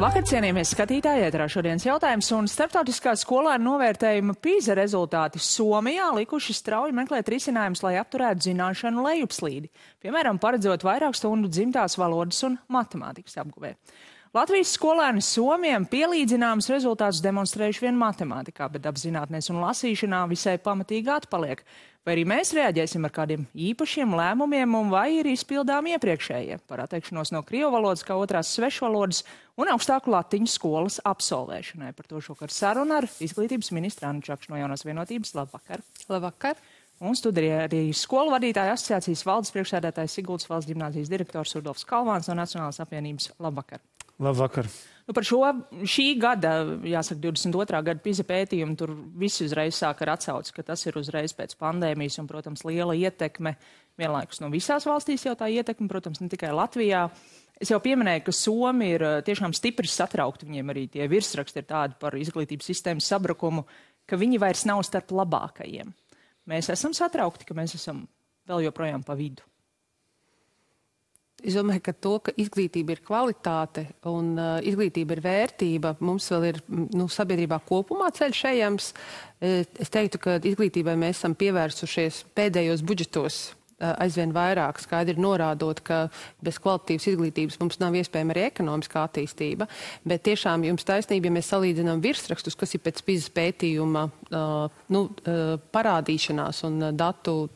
Vakar, cienījamies skatītāji, ēterā šodienas jautājums, un starptautiskā skolēnu novērtējuma PISA rezultāti Somijā likuši strauji meklēt risinājumus, lai apturētu zināšanu lejupslīdi, piemēram, paredzot vairāk stundu dzimtās valodas un matemātikas apguvē. Latvijas skolēni Somiem pielīdzināmus rezultātus demonstrējuši vien matemātikā, bet apzinātnēs un lasīšanā visai pamatīgi atpaliek. Vai arī mēs reaģēsim ar kādiem īpašiem lēmumiem un vai ir izpildām iepriekšējie par atteikšanos no krievu valodas kā otrās svešvalodas un augstāku latiņu skolas absolvēšanai. Par to šokar saruna ar izglītības ministru Annu Čakšu no Jaunās vienotības. Labvakar! Labvakar! Un studijā arī skolu vadītāja asociācijas valdes priekšsēdētājs Siguldas valsts ģimnāzijas direktors Rudolfs Kalvāns no Nacionālās apvienības. Labvakar! Labvakar! Par šī gada, jāsaka, 22. gada PISA pētījumu, tur visi uzreiz sāk ar atsauci, ka tas ir uzreiz pēc pandēmijas un, protams, liela ietekme vienlaikus no visās valstīs jau tā ietekme, protams, ne tikai Latvijā. Es jau pieminēju, ka Somi ir tiešām stipri satraukti, viņiem arī tie virsraksti ir tādi par izglītības sistēmas sabrukumu, ka viņi vairs nav starp labākajiem. Mēs esam satraukti, ka mēs esam vēl joprojām pa vidu. Es domāju, ka to, ka izglītība ir kvalitāte un izglītība ir vērtība, mums vēl ir sabiedrībā kopumā ceļš ejams. Es teiktu, ka izglītībai mēs esam pievērsušies pēdējos budžetos aizvien vairāk, skaidri norādot, ka bez kvalitatīvas izglītības mums nav iespējama arī ekonomiskā attīstība. Bet tiešām jums taisnība, ja mēs salīdzinām virsrakstus, kas ir pēc PISA pētījuma parādīšanās un datu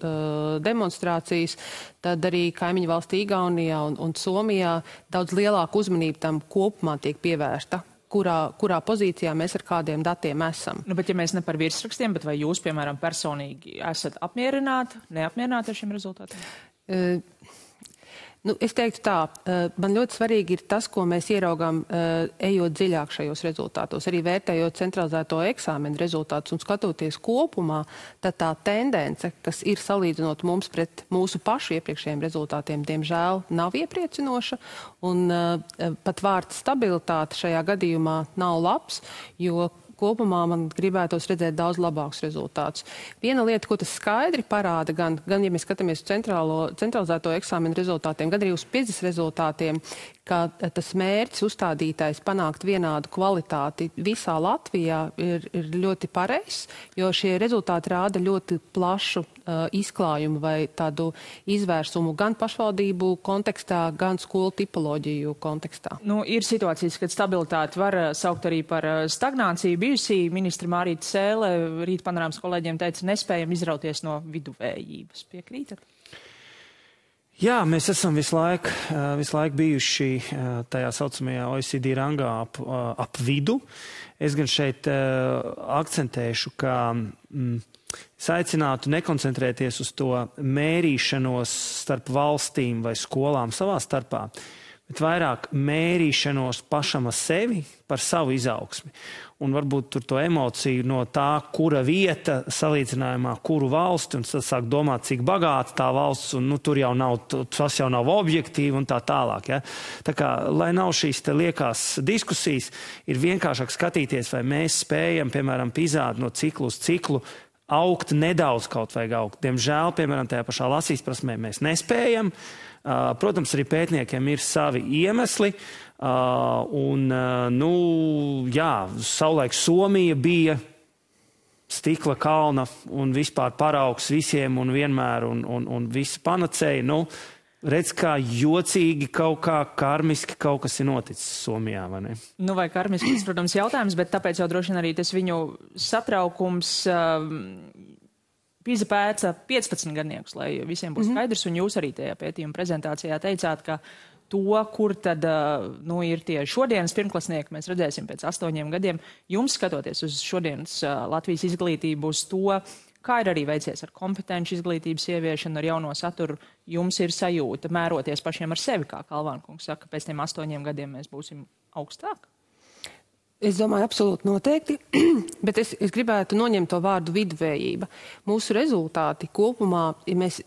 demonstrācijas, tad arī kaimiņu valstī Igaunijā un Somijā daudz lielāku uzmanību tam kopumā tiek pievērsta. Kurā pozīcijā mēs ar kādiem datiem esam. Bet ja mēs ne par virsrakstiem, bet vai jūs, piemēram, personīgi esat apmierināti, neapmierināti ar šiem rezultātiem? Es teiktu tā, man ļoti svarīgi ir tas, ko mēs ieraugām, ejot dziļāk šajos rezultātos, arī vērtējot centralizēto eksāmenu rezultātus un skatoties kopumā, tad tā tendence, kas ir salīdzinot mums pret mūsu pašu iepriekšējiem rezultātiem, diemžēl nav iepriecinoša, un pat vārds stabilitāte šajā gadījumā nav labs, jo kopumā man gribētos redzēt daudz labākus rezultātus. Viena lieta, ko tas skaidri parāda, gan ja mēs skatāmies uz centralizēto eksāmenu rezultātiem, gan arī uz PISA rezultātiem, ka tas mērķis uzstādītais panākt vienādu kvalitāti visā Latvijā ir ļoti pareizs, jo šie rezultāti rāda ļoti plašu izklājumu vai tādu izvērsumu gan pašvaldību kontekstā, gan skolu tipoloģiju kontekstā. Ir situācijas, kad stabilitāti var saukt arī par stagnāciju. Bijusī ministra Mārīta Sēle rīt panorāmas kolēģiem teica, nespējam izrauties no viduvējības. Piekrītat? Jā, mēs esam visu laiku bijuši tajā saucamajā OECD rangā ap vidu. Es gan šeit akcentēšu, ka es aicinātu nekoncentrēties uz to mērīšanos starp valstīm vai skolām savā starpā, bet vairāk mērīšanos pašam ar sevi par savu izaugsmi. Un varbūt tur to emociju no tā, kura vieta salīdzinājumā, kuru valsti, un tad sāk domāt, cik bagāta tā valsts, un tur jau nav, tas jau nav objektīvi un tā tālāk. Ja? Tā kā, lai nav šīs te liekās diskusijas, ir vienkāršāk skatīties, vai mēs spējam, piemēram, PISA no ciklu uz ciklu, augt nedaudz kaut vajag augt. Diemžēl, piemēram, tajā pašā lasīs prasmē mēs nespējam. Protams, arī pētniekiem ir savi iemesli. Savulaik Somija bija stikla kalna un vispār paraugs visiem un vienmēr un visi panacēja. Redz, kā jocīgi kaut kā karmiski kaut kas ir noticis Somijā, vai ne? Vai karmiski, protams, jautājums, bet tāpēc jau droši vien arī tas viņu satraukums PISA pēca 15 gadniekus, lai visiem būtu skaidrs, un jūs arī tajā pētījuma prezentācijā teicāt, ka to, kur tad ir tie šodienas pirmklasnieki, mēs redzēsim pēc 8 gadiem. Jums, skatoties uz šodienas Latvijas izglītību, uz to, kā ir arī veicies ar kompetenci izglītības ieviešanu, ar jauno saturu, jums ir sajūta mēroties pašiem ar sevi, kā Kalvāna kungs saka, pēc tiem 8 gadiem mēs būsim augstāk? Es domāju, absolūti noteikti, bet es gribētu noņemt to vārdu viduvējība. Mūsu rezultāti kopumā, ja mēs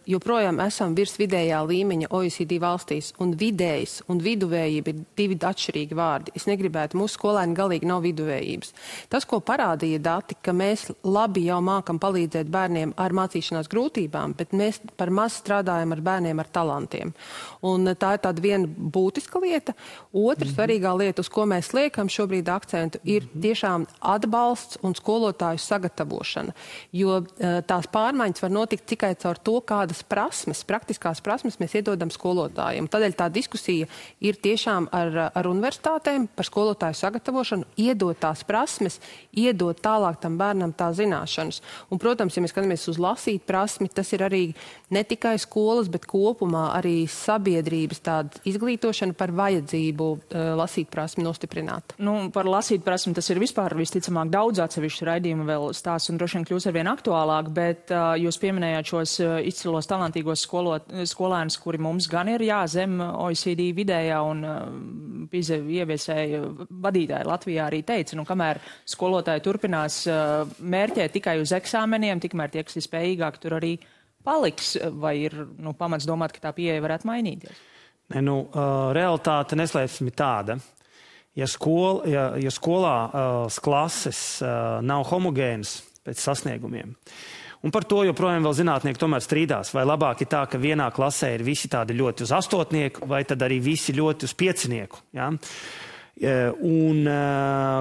joprojām esam virs vidējā līmeņa OECD valstīs, un vidējs un viduvējība ir divi atšķirīgi vārdi. Es negribētu, mūsu skolēni galīgi nav viduvējības. Tas, ko parādīja dati, ka mēs labi jau mākam palīdzēt bērniem ar mācīšanās grūtībām, bet mēs par maz strādājam ar bērniem ar talantiem. Un tā ir tāda viena būtiska lieta. Otra svarīgā lieta, uz ko mēs liekam šobrīd akcentu, ir tiešām atbalsts un skolotāju sagatavošana, jo tās pārmaiņas var notikt tikai caur to, kādas prasmes, praktiskās prasmes mēs iedodam skolotājiem. Tādēļ tā diskusija ir tiešām ar universitātēm par skolotāju sagatavošanu, iedot tās prasmes, iedot tālāk tam bērnam tā zināšanas. Un, protams, ja mēs skatāmies uz lasīt prasmi, tas ir arī ne tikai skolas, bet kopumā arī sabiedrības tāda izglītošana par vajadzību lasīt prasmi nostiprināt. Par lasīt prasmi tas ir vispār visticamāk daudz atsevišķu raidījumu vēl stāsts un droši vien kļūs arvien aktuālāk, bet jūs pieminējāt šos izcilos talantīgos skolēnus, kuri mums gan ir zem OECD vidējā un PISA ieviesēja vadītāji Latvijā arī teica, kamēr skolotāji turpinās mērķēt tikai uz eksāmeniem, tikmēr tie, kas ir spējīgāki, tur arī paliks, vai ir pamats domāt, ka tā pieeja varētu mainīties? Realitāte neslēpsim tāda. Ja skolā klases nav homogēnas pēc sasniegumiem, un par to joprojām vēl zinātnieki tomēr strīdās, vai labāk ir tā, ka vienā klasē ir visi tādi ļoti uz 8, vai tad arī visi ļoti uz 5. Ja? Un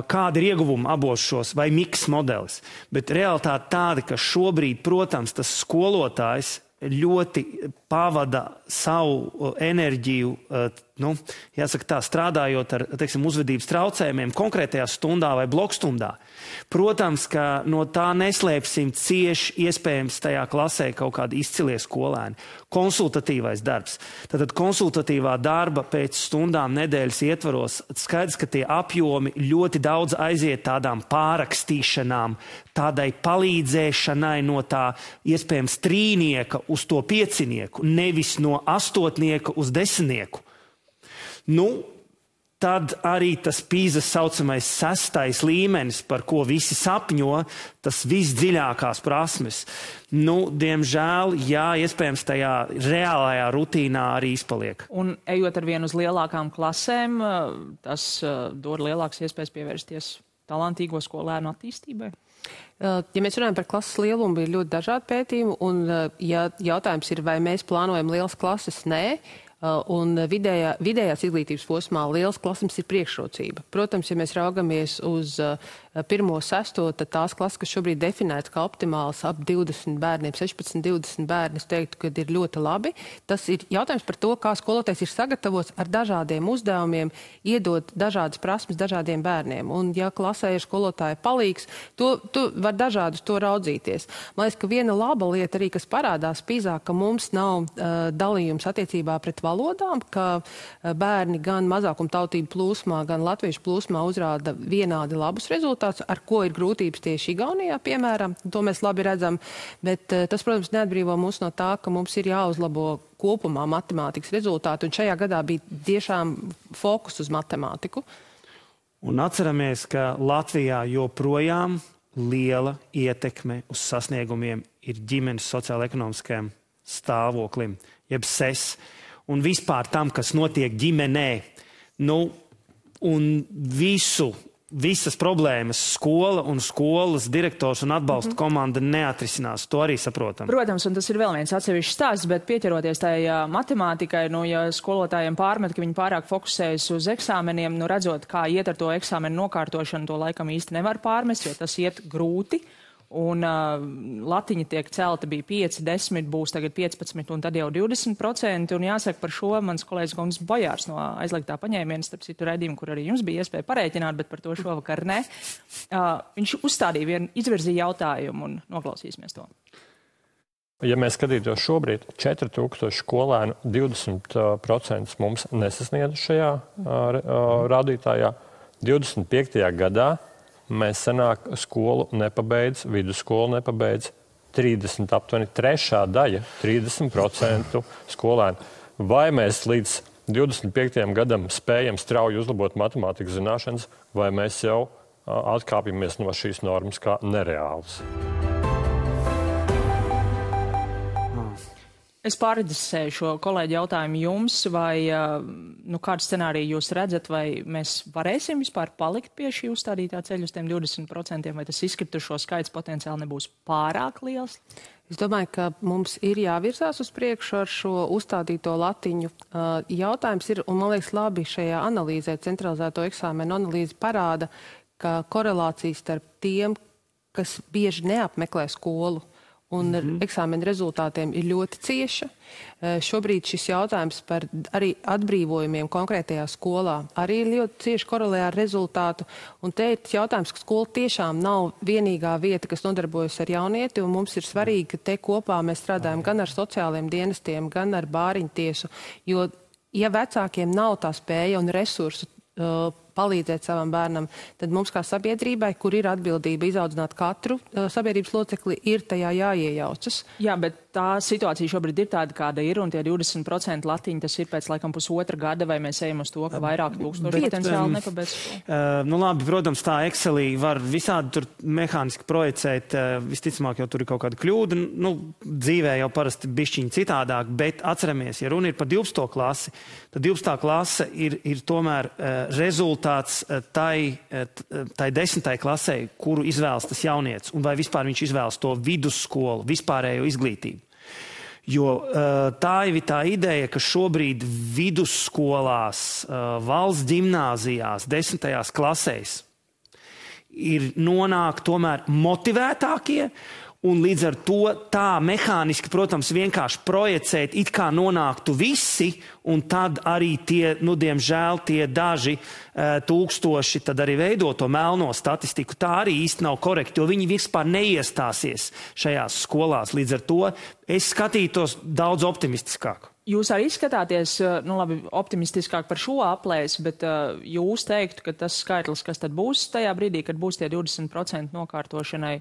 kāda ir ieguvuma abos šos, vai miks modelis. Bet realitāte tāda, ka šobrīd, protams, tas skolotājs ļoti pavada savu enerģiju, jāsaka tā, strādājot ar, uzvedības traucējumiem konkrētajā stundā vai blokstundā. Protams, ka no tā neslēpsim cieši iespējams tajā klasē kaut kādi izcilie skolēni. Konsultatīvais darbs. Tātad konsultatīvā darba pēc stundām nedēļas ietvaros skaidrs, ka tie apjomi ļoti daudz aiziet tādām pārakstīšanām, tādai palīdzēšanai no tā iespējams 3 uz to 5, nevis no 8 uz 10. Tad arī tas PISA saucamais 6. līmenis, par ko visi sapņo, tas visdziļākās prasmes. Diemžēl, iespējams tajā reālajā rutīnā arī izpaliek. Un ejot ar vienu uz lielākām klasēm, tas dod lielākas iespējas pievērsties talantīgo skolēnu attīstībai? Ja mēs runājam par klases lielumu, ir ļoti dažādi pētījumi, un ja jautājums ir, vai mēs plānojam lielas klases, nē, un vidējās izglītības posmā lielas klases ir priekšrocība. Protams, ja mēs raugamies uz 1.6, tad tās klases, kas šobrīd definētas kā optimāls ap 20 bērniem, 16-20 bērni, es teiktu, ka ir ļoti labi. Tas ir jautājums par to, kā skolotājs ir sagatavots ar dažādiem uzdevumiem, iedot dažādas prasmes dažādiem bērniem. Un ja klasē ir skolotāja palīgs, tu var dažādus to raudzīties. Man liekas, ka viena laba lieta arī, kas parādās PISA, ka mums nav dalījums attiecībā pret valodām, ka bērni gan mazākumtautību plūsmā, gan latviešu plūsmā uzrāda vienādi labus rezultātus, ar ko ir grūtības tieši Igaunijā, piemēram. To mēs labi redzam, bet tas, protams, neatbrīvo mūs no tā, ka mums ir jāuzlabo kopumā matemātikas rezultāti, un šajā gadā bija tiešām fokus uz matemātiku. Un atceramies, ka Latvijā joprojām liela ietekme uz sasniegumiem ir ģimenes sociāla-ekonomiskajam stāvoklim, jeb SES. Un vispār tam, kas notiek ģimenē, un visas problēmas skola un skolas direktors un atbalsta komanda neatrisinās. To arī saprotam. Protams, un tas ir vēl viens atsevišķs stāsts, bet pieķeroties tajā matemātikai, ja skolotājiem pārmet, ka viņi pārāk fokusējas uz eksāmeniem, redzot, kā iet ar to eksāmenu nokārtošanu, to laikam īsti nevar pārmest, jo tas iet grūti. Un latiņa tiek celta, bija 5, 10, būs tagad 15 un tad jau 20%. Un jāsaka par šo mans kolēģis Guntis Bojārs no aizliegtā paņēmiena, starp citu raidījumu, kur arī jums bija iespēja parēķināt, bet par to šovakar ne. Viņš uzstādīja izvirzīja jautājumu un noklausīsimies to. Ja mēs skatītos šobrīd, 4000 skolēnu 20% mums nesasniedz šajā rādītājā. 25. gadā mēs senāk skolu nepabeidz, vidusskolu nepabeidz 30, aptuveni 3. daļa, 30% skolēnu. Vai mēs līdz 25. gadam spējam strauji uzlabot matemātikas zināšanas, vai mēs jau atkāpjamies no šīs normas kā nereālas. Es pārredzēju šo kolēģi jautājumu jums, vai kādu scenāriju jūs redzat, vai mēs varēsim vispār palikt pie šī uzstādītā ceļa uz tiem 20%, vai tas izkritušo skaits potenciāli nebūs pārāk liels? Es domāju, ka mums ir jāvirzās uz priekšu ar šo uzstādīto latiņu. Jautājums ir, un man liekas labi šajā analīzē, centralizēto eksāmenu analīze parāda, ka korelācija starp tiem, kas bieži neapmeklē skolu, un eksāmena rezultātiem ir ļoti cieša. Šobrīd šis jautājums par arī atbrīvojumiem konkrētajā skolā arī ļoti cieši korelē ar rezultātu. Un te ir jautājums, ka skola tiešām nav vienīgā vieta, kas nodarbojas ar jaunieti, un mums ir svarīgi, ka te kopā mēs strādājam gan ar sociāliem dienestiem, gan ar bāriņtiesu, jo, ja vecākiem nav tā spēja un resursu palīdzēt savam bērnam, tad mums kā sabiedrībai, kur ir atbildība izaudzināt katru sabiedrības locekli, ir tajā jāiejaucas. Jā, bet tā situācija šobrīd ir tāda, kāda ir, un tie 20% latiņi, tas ir pēc laikam pusotra gada, vai mēs ejam uz to, ka vairāk tūkstoši potenciāli nepabeidz. Labi, protams, tā Excelī var visādi tur mehāniski projicēt, visticamāk jau tur ir kaut kāda kļūda, dzīvē jau parasti bišķiņi citādāk, bet atceramies, ja runa ir par 12. klasi, tad 12. klase ir tomēr rezultāts tai 10. klasē, kuru izvēlas tas jaunietis, un vai vispār viņš izvēlas to vidusskolu, vispārējo izglītību. Jo tā ir tā ideja, ka šobrīd vidusskolās, valsts ģimnāzijās, 10. klasēs ir nonāk tomēr motivētākie, un līdz ar to tā mehāniski, protams, vienkārši projicēt, it kā nonāktu visi, un tad arī tie, diemžēl, tie daži tūkstoši tad arī veido to melno statistiku. Tā arī īsti nav korekti, jo viņi vispār neiestāsies šajās skolās. Līdz ar to es skatītos daudz optimistiskāk. Jūs arī skatāties, optimistiskāk par šo aplēsi, bet jūs teiktu, ka tas skaitlis, kas tad būs tajā brīdī, kad būs tie 20% nokārtošanai,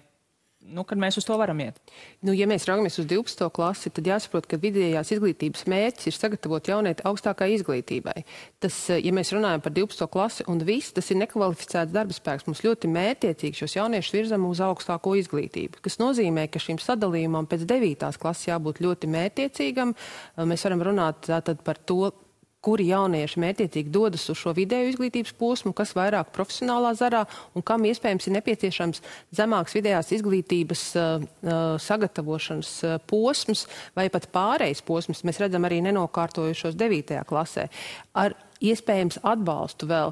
kad mēs uz to varam iet? Ja mēs raugamies uz 12. klasi, tad jāsaprot, ka vidējās izglītības mērķis ir sagatavot jaunieti augstākai izglītībai. Tas, ja mēs runājam par 12. klasi un viss, tas ir nekvalificēts darba spēks. Mums ļoti mērķiecīgi šos jauniešus virzam uz augstāko izglītību, kas nozīmē, ka šim sadalījumam pēc 9. klases jābūt ļoti mērķiecīgam. Mēs varam runāt tātad par to, kuri jaunieši mērķiecīgi dodas uz šo vidēju izglītības posmu, kas vairāk profesionālā zarā un kam iespējams ir nepieciešams zemāks vidējās izglītības sagatavošanas posms vai pat pārejas posms. Mēs redzam arī nenokārtojušos 9. klasē. Ar iespējams atbalstu vēl.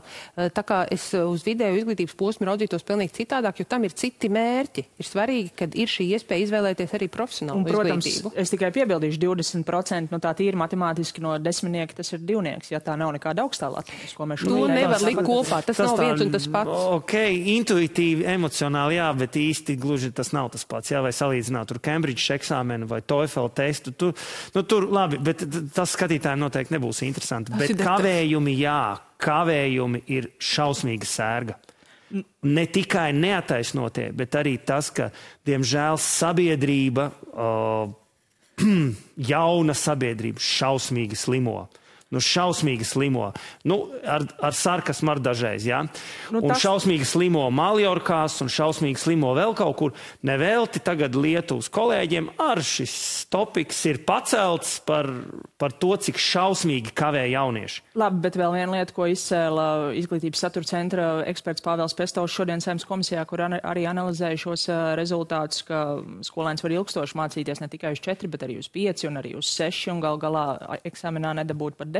Tā kā es uz vidēju izglītības posmu raudzītos pilnīgi citādāk, jo tam ir citi mērķi. Ir svarīgi, kad ir šī iespēja izvēlēties arī profesionālu izglītību. Protams, es tikai piebildīšu 20%, tā tīri matemātiski no desmitnieka tas ir divnieks, ja tā nav nekāda augstā latiņas, ko mēs šodien nevar likt kopā. Tas nav viens un tas pats. Ok, intuitīvi, emocionāli, jā, bet īsti gluži tas nav tas pats. Jā, vai salīdzināt tur Cambridge eksāmenu vai TOEFL testu. Tur labi, bet tas skatītājiem noteikti nebūs interesanti. Bet kavējumi ir šausmīga sērga. Ne tikai neataisnotie, bet arī tas, ka, diemžēl, sabiedrība, jauna sabiedrība šausmīgi slimo. Šausmīgi slimo. Ar sarkasmu ar dažreiz, jā. Un šausmīgi slimo Maljorkās un šausmīgi slimo vēl kaut kur. Nevelti tagad Lietuvas kolēģiem ar šis topiks ir pacelts par to, cik šausmīgi kavē jaunieši. Labi, bet vēl viena lieta, ko izcēla Izglītības satura centra eksperts Pāvels Pestovs šodien Saeimas komisijā, kur arī analizēja šos rezultātus, ka skolēns var ilgstoši mācīties ne tikai uz 4, bet arī uz 5 un arī uz 6 un galā eksāmenā nedabūt par 10%.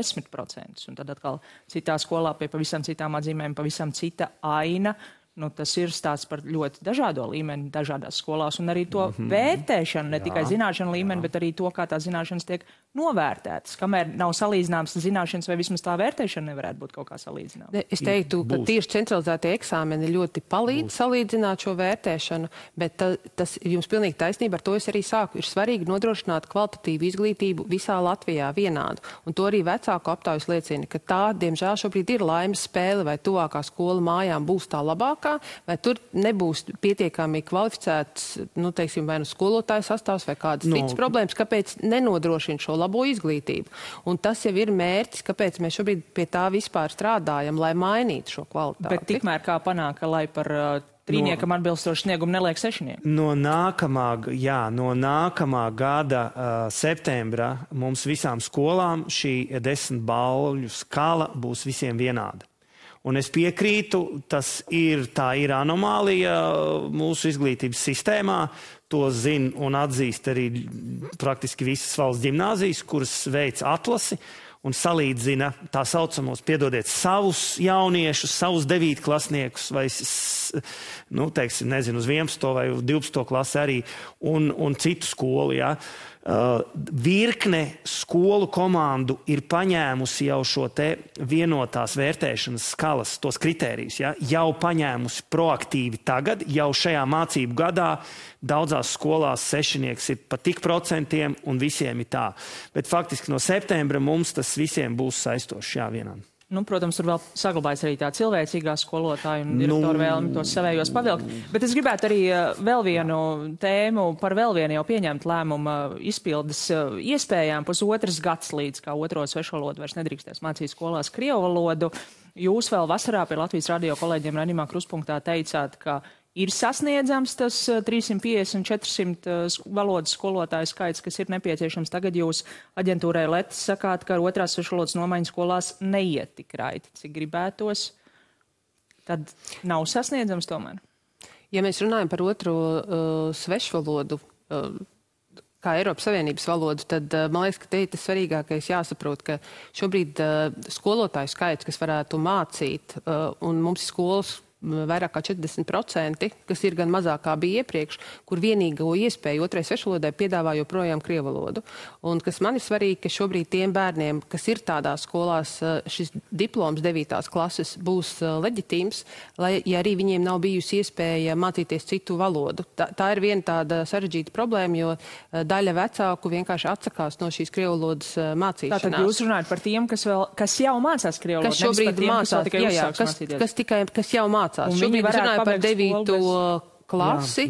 Un tad atkal citā skolā pie pavisam citām atzīmēm, pavisam cita aina. Tas ir stāsts par ļoti dažādo līmeni dažādās skolās un arī to vērtēšanu, ne tikai zināšanu līmeni, bet arī to, kā tās zināšanas tiek novērtētas. Kamēr nav salīdzināmas zināšanas, vai vismaz tā vērtēšana nevarētu būt kaut kā salīdzināma. Es teiktu, ka tieši centralizētie eksāmeni ļoti palīdz salīdzināt šo vērtēšanu, bet tas ir jums pilnīgi taisnība, ar to es arī sāku. Ir svarīgi nodrošināt kvalitatīvu izglītību visā Latvijā vienādu. Un to arī vecāku aptaujas liecina, ka tā, diemžēl, šobrīd ir laimes spēle, vai tuvākā skola mājām būs tā labākā, spēkā, vai tur nebūs pietiekami kvalificēts, nu, teiksim, vai nu skolotāju sastāvs vai kādas citas problēmas, kāpēc nenodrošina šo labo izglītību. Un tas jau ir mērķis, kāpēc mēs šobrīd pie tā vispār strādājam, lai mainītu šo kvalitāti. Bet tikmēr kā panāk, lai par trīniekam atbilstoši sniegumu neliek sešnieki? No nākamā gada septembra mums visām skolām šī 10 balvju skala būs visiem vienāda. Un es piekrītu, tā ir anomālija mūsu izglītības sistēmā. To zina un atzīst arī praktiski visas valsts ģimnāzijas, kuras veic atlasi un salīdzina tā saucamos, piedodiet, savus jauniešus, savus 9. klasniekus vai, nu, teiksim, nezinu, uz 11. vai 12. klasi arī un citu skolu, jā. Virkne skolu komandu ir paņēmusi jau šo te vienotās vērtēšanas skalas, tos kritērijus, ja? Jau paņēmusi proaktīvi tagad, jau šajā mācību gadā daudzās skolās sešnieks ir pa tik procentiem un visiem ir tā. Bet faktiski no septembra mums tas visiem būs saistošs, jā, vienam. Nu, protams, tur vēl saglabājas arī tā cilvēcīgā skolotāja un direktora vēlmi tos savējos pavilkt. Bet es gribētu arī vēl vienu tēmu par vēl vienu jau pieņemt lēmumu izpildes iespējām. Pusotras gads līdz kā otro svešvalodu vairs nedrīkstēs mācīt skolās krievu valodu. Jūs vēl vasarā pie Latvijas radio kolēģiem raidījumā Kruspunktā teicāt, ka ir sasniedzams tas 350-400 valodas skolotāju skaits, kas ir nepieciešams. Tagad jūs aģentūrai Letis sakāt, ka ar otrās svešvalodas nomaiņu skolās neiet tik raiti, cik gribētos. Tad nav sasniedzams tomēr? Ja mēs runājam par otro svešvalodu, kā Eiropas Savienības valodu, tad man liekas, ka te ir tas svarīgākais jāsaprot, ka šobrīd skolotāju skaits, kas varētu mācīt, un mums ir skolas vairāk kā 40%, kas ir gan mazāk kā bija iepriekš, kur vienīgo iespēju otrai svešvalodai piedāvā joprojām krievu valodu. Un kas man ir svarīgi, ka šobrīd tiem bērniem, kas ir tādās skolās, šis diploms 9. klases būs leģitīms, lai ja arī viņiem nav bijusi iespēja mācīties citu valodu. Tā ir viena tāda sarežģīta problēma, jo daļa vecāku vienkārši atsakās no šīs krievu valodas mācīšanās. Tātad jūs runājat par tiem, kas jau mācās krievu valodu, kas šobrīd mācās, kas jau mācās. Šobrīd runāja par 9. klasi,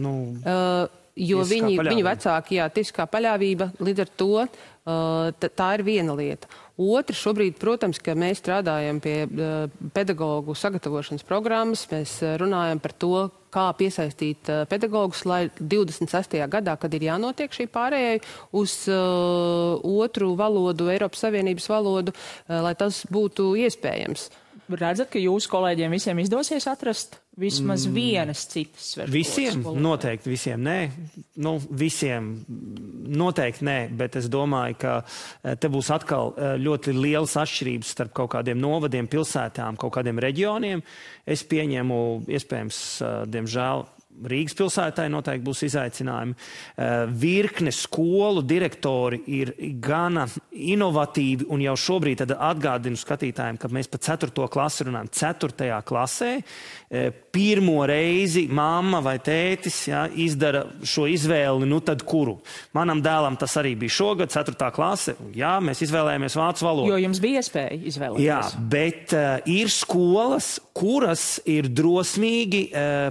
jo viņu vecāki, tiesiskā paļāvība, līdz ar to tā ir viena lieta. Otra, šobrīd, protams, ka mēs strādājam pie pedagogu sagatavošanas programmas, mēs runājam par to, kā piesaistīt pedagogus, lai 26. gadā, kad ir jānotiek šī pārējai uz otru valodu, Eiropas Savienības valodu, lai tas būtu iespējams. Redzat, ka jūsu kolēģiem visiem izdosies atrast vismaz vienas citas svešvalodas? Visiem? Noteikti visiem nē. Nu, visiem noteikti nē, bet es domāju, ka te būs atkal ļoti lielas atšķirības starp kaut kādiem novadiem, pilsētām, kaut kādiem reģioniem. Es pieņemu, iespējams, diemžēl, Rīgas pilsētai noteikti būs izaicinājumi. Virkne skolu direktori ir gana inovatīvi un jau šobrīd tad atgādinu skatītājiem, ka mēs pa 4. klasi runājam. 4. klasē pirmo reizi mamma vai tētis izdara šo izvēli, nu tad kuru? Manam dēlam tas arī bija šogad, 4. klase. Jā, mēs izvēlējāmies vācu valodu. Jo jums bija iespēja izvēlēties. Jā, bet ir skolas, kuras ir drosmīgi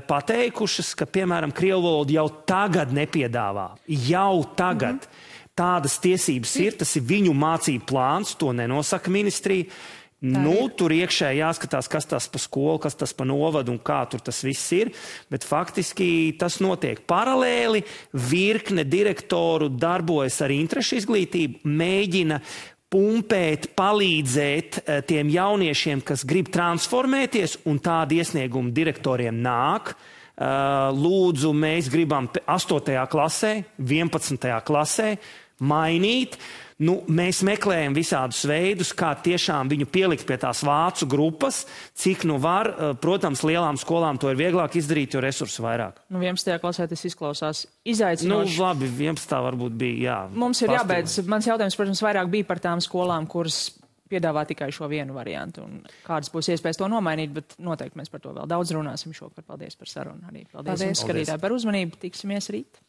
pateikušas, ka, piemēram, krievu valodu jau tagad nepiedāvā. Jau tagad. Tādas tiesības ir, tas ir viņu mācību plāns, to nenosaka ministrija. Nu, tur iekšē jāskatās, kas tas pa skolu, kas tas pa novadu un kā tur tas viss ir, bet faktiski tas notiek paralēli. Virkne direktoru darbojas ar interešu izglītību, mēģina pumpēt, palīdzēt tiem jauniešiem, kas grib transformēties, un tādi iesniegumi direktoriem nāk. Lūdzu, mēs gribam 8. klasē, 11. klasē mainīt. Nu, mēs meklējam visādus veidus, kā tiešām viņu pielikt pie tās vācu grupas, cik nu var. Protams, lielām skolām to ir vieglāk izdarīt, jo resursu vairāk. Nu, 11. klasē tas izklausās izaicinoši. Nu, labi, 11. varbūt bija, jā. Mums ir jābeidz. Mans jautājums, protams, vairāk bija par tām skolām, kuras piedāvā tikai šo vienu variantu. Un kādas būs iespējas to nomainīt, bet noteikti mēs par to vēl daudz runāsim šovakar. Paldies par sarunu arī. Paldies. Jums, skatītāji, par uzmanību. Tiksimies rīt.